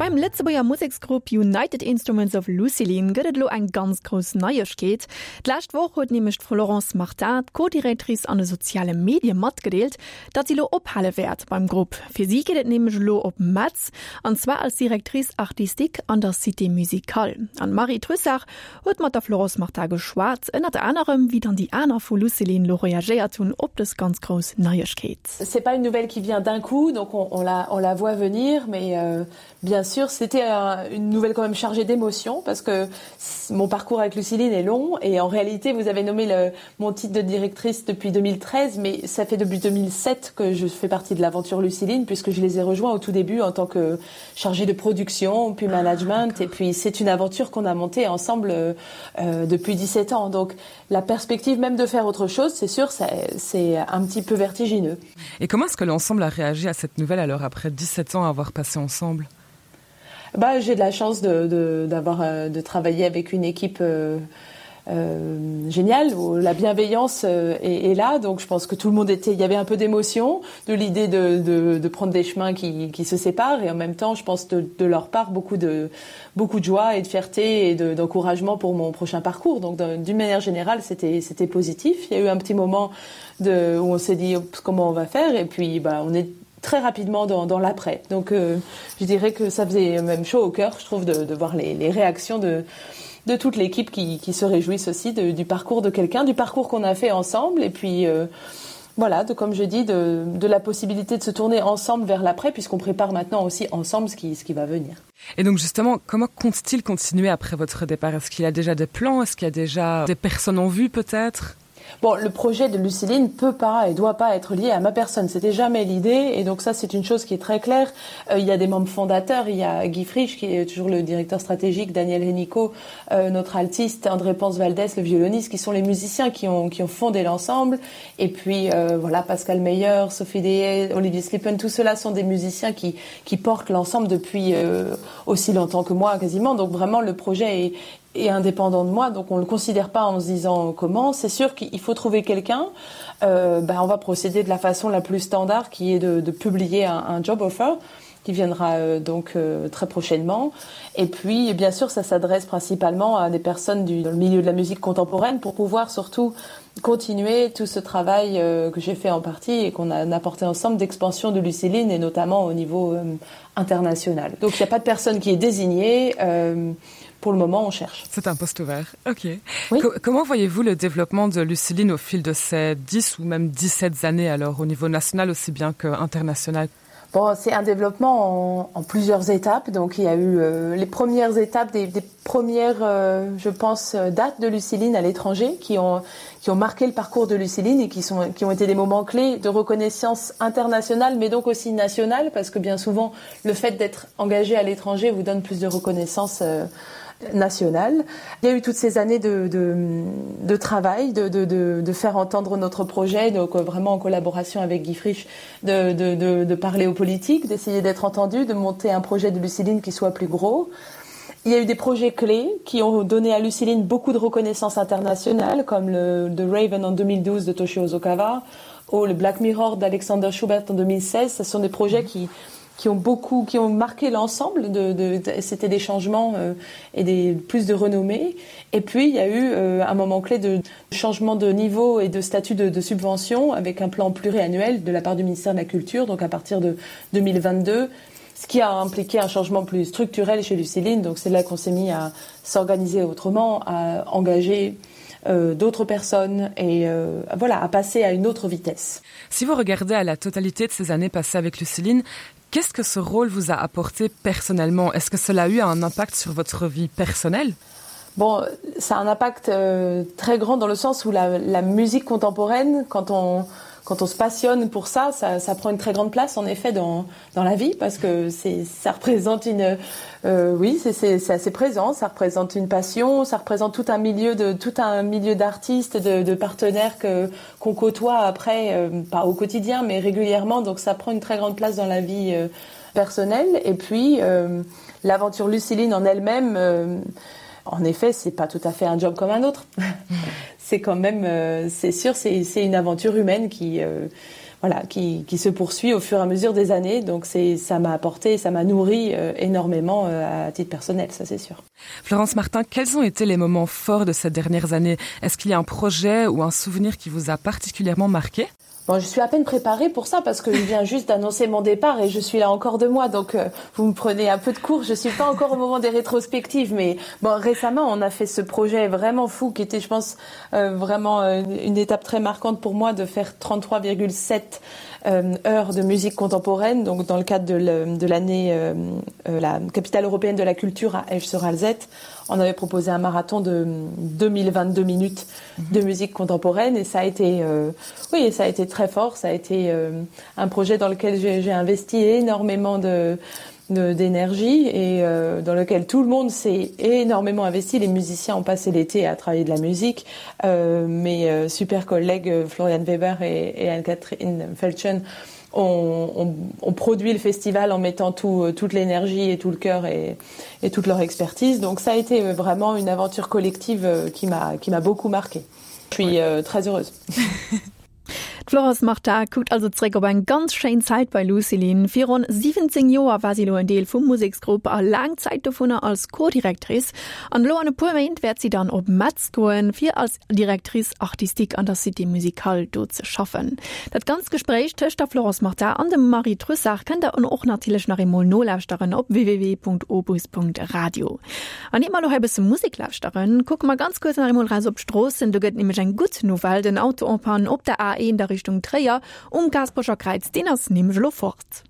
Beim Lëtzebuerger Museksgrupp United Instruments of Lucilin gëtt et elo eng ganz grouss Neiegkeet. D'lescht Woch huet nämlech d'Florence Martin, d'Co-Directrice an de soziale Medie matgedeelt, datt si elo ophale wäert beim Grupp. Fir si geet et nämlech elo op Metz, an zwar als Directrice artistique an der Cité Musicale. An d'Marie Trussart huet mat der Florence Martin geschwat, ënnert anerem wéi dann déi aner vu Lucilin elo reagéiert hunn op dës ganz grouss Neiegkeet. C'est pas une nouvelle qui vient d'un coup, donc on, on, la, on la voit venir, mais euh, bien sûr c'était un, une nouvelle quand même chargée d'émotions parce que mon parcours avec Luciline est long et en réalité vous avez nommé le, mon titre de directrice depuis 2013 mais ça fait depuis 2007 que je fais partie de l'aventure Luciline puisque je les ai rejoints au tout début en tant que chargée de production puis ah, management ah, et puis c'est une aventure qu'on a montée ensemble euh, euh depuis 17 ans donc la perspective même de faire autre chose c'est sûr c'est un petit peu vertigineux. Et comment est-ce que l'ensemble a réagi à cette nouvelle alors après 17 ans à avoir passé ensemble? Bah, j'ai de la chance de, d'avoir euh, de travailler avec une équipe euh, euh, géniale où la bienveillance euh, est, est là donc je pense que tout le monde était il y avait un peu d'émotion de l'idée de, de, de prendre des chemins qui, qui se séparent et en même temps je pense de, de leur part beaucoup de beaucoup de joie et de fierté et d'encouragement de, pour mon prochain parcours donc d'une manière générale c'était c'était positif il y a eu un petit moment de où on s'est dit comment on va faire et puis bah on est très rapidement dans, dans l'après donc euh, je dirais que ça faisait même chaud au cœur je trouve de, de voir les, les réactions de de toute l'équipe qui, qui se réjouissent aussi de, du parcours de quelqu'un du parcours qu'on a fait ensemble et puis euh, voilà de comme je dis de, de la possibilité de se tourner ensemble vers l'après puisqu'on prépare maintenant aussi ensemble ce qui ce qui va venir et donc justement comment compte-t-il continuer après votre départ est-ce qu'il a déjà des plans est-ce qu'il y a déjà des personnes en vue peut-être Bon, le projet de Luciline peut pas et doit pas être lié à ma personne. C'était jamais l'idée et donc ça c'est une chose qui est très claire. Euh, il y a des membres fondateurs, il y a Guy Frisch qui est toujours le directeur stratégique, Daniel Hennico, euh, notre altiste, André Ponce Valdès, le violoniste, qui sont les musiciens qui ont, qui ont fondé l'ensemble. Et puis euh, voilà Pascal Meyer, Sophie Deshaies, Olivier Slippen, tout cela sont des musiciens qui, qui portent l'ensemble depuis euh, aussi longtemps que moi quasiment. Donc vraiment le projet est, est indépendant de moi donc on le considère pas en se disant comment c'est sûr qu'il faut trouver quelqu'un euh, ben on va procéder de la façon la plus standard qui est de, de publier un, un job offer qui viendra euh, donc euh, très prochainement et puis bien sûr ça s'adresse principalement à des personnes du dans le milieu de la musique contemporaine pour pouvoir surtout continuer tout ce travail euh, que j'ai fait en partie et qu'on a apporté ensemble d'expansion de Luciline et notamment au niveau euh, international donc il n'y a pas de personne qui est désignée euh, pour le moment on cherche. C'est un poste ouvert. Ok. Oui. Co comment voyez-vous le développement de Luciline au fil de ces 10 ou même 17 années alors au niveau national aussi bien qu'international? Bon, c'est un développement en, en plusieurs étapes. Donc il y a eu euh, les premières étapes des, des premières euh, je pense euh, dates de Luciline à l'étranger qui ont, qui ont marqué le parcours de Luciline et qui, sont, qui ont été des moments clés de reconnaissance internationale mais donc aussi nationale parce que bien souvent le fait d'être engagé à l'étranger vous donne plus de reconnaissance euh, nationale. Il y a eu toutes ces années de, de, de travail, de, de, de, de faire entendre notre projet, donc euh, vraiment en collaboration avec Guy Frisch, de, de, de, de parler aux politiques, d'essayer d'être entendu, de monter un projet de Luciline qui soit plus gros. Il y a eu des projets clés qui ont donné à Luciline beaucoup de reconnaissance internationale, comme le The Raven en 2012 de Toshio Ozokawa ou le Black Mirror d'Alexander Schubert en 2016. Ce sont des projets qui, qui ont beaucoup qui ont marqué l'ensemble de, de, de c'était des changements euh, et des plus de renommée et puis il y a eu euh, un moment clé de changement de niveau et de statut de, de subvention avec un plan pluriannuel de la part du ministère de la culture donc à partir de 2022 ce qui a impliqué un changement plus structurel chez Luciline donc c'est là qu'on s'est mis à s'organiser autrement à engager euh, d'autres personnes et euh, voilà à passer à une autre vitesse. Si vous regardez à la totalité de ces années passées avec Luciline, qu'est-ce que ce rôle vous a apporté personnellement? Est-ce que cela a eu un impact sur votre vie personnelle? Bon, ça a un impact euh, très grand dans le sens où la, la musique contemporaine, quand on, quand on se passionne pour ça, ça, ça prend une très grande place en effet dans, dans la vie parce que ça représente une euh, oui c'est assez présent, ça représente une passion, ça représente tout un milieu de tout un milieu d'artistes, de, de partenaires que qu'on côtoie après euh, pas au quotidien mais régulièrement donc ça prend une très grande place dans la vie euh, personnelle et puis euh, l'aventure Luciline en elle-même euh, en effet c'est pas tout à fait un job comme un autre c'est quand même euh, c'est sûr c'est une aventure humaine qui euh, voilà, qui, qui se poursuit au fur et à mesure des années. Donc c'est ça m'a apporté, ça m'a nourri euh, énormément euh, à titre personnel, ça c'est sûr. Florence Martin, quels ont été les moments forts de ces dernières années? Est-ce qu'il y a un projet ou un souvenir qui vous a particulièrement marqué? Bon, je suis à peine préparée pour ça parce que je viens juste d'annoncer mon départ et je suis là encore deux mois donc euh, vous me prenez un peu de cours je suis pas encore au moment des rétrospectives mais bon récemment on a fait ce projet vraiment fou qui était je pense euh, vraiment euh, une étape très marquante pour moi de faire 33,7 euh, heures de musique contemporaine donc dans le cadre de l'année euh, euh, la capitale européenne de la culture à Esch sur Alzette on avait proposé un marathon de 2022 minutes de musique contemporaine et ça a été euh, oui ça a été très fort ça a été euh, un projet dans lequel j'ai investi énormément de d'énergie et euh, dans lequel tout le monde s'est énormément investi les musiciens ont passé l'été à travailler de la musique euh, mes euh, super collègues euh, Florian Weber et, et Anne-Catherine Felchen ont on, on produit le festival en mettant tout euh, toute l'énergie et tout le cœur et, et toute leur expertise donc ça a été euh, vraiment une aventure collective euh, qui m'a qui m'a beaucoup marqué je suis euh, très heureuse D'Florence Martin kuckt also zréck op eng ganz schéin Zäit bei Lucilin. Fir ronn 17 Joer war si elo en Deel vum Museksgrupp a laang Zäit dovunner als Co-Directrice. An elo an e puer Méint wäert si dann op Metz goen, fir als Directrice artistique an der Cité Musicale do ze schaffen. Dat ganzt Gespréich tëscht der Florence Martin an dem Marie Trussart kënnt der och natierlech nach eemol nolauschteren op www.opus.radio. An ier mer elo hei e bësse Musek lauschteren, kucke mer ganz kuerz nach eemol raus op d'Stroossen. Do gëtt nämlech eng gutt Nouvelle, Den Auto en panne op der A1 a Richtung Tréier um Gaasperecher Kräiz, deen ass nämlech elo fort.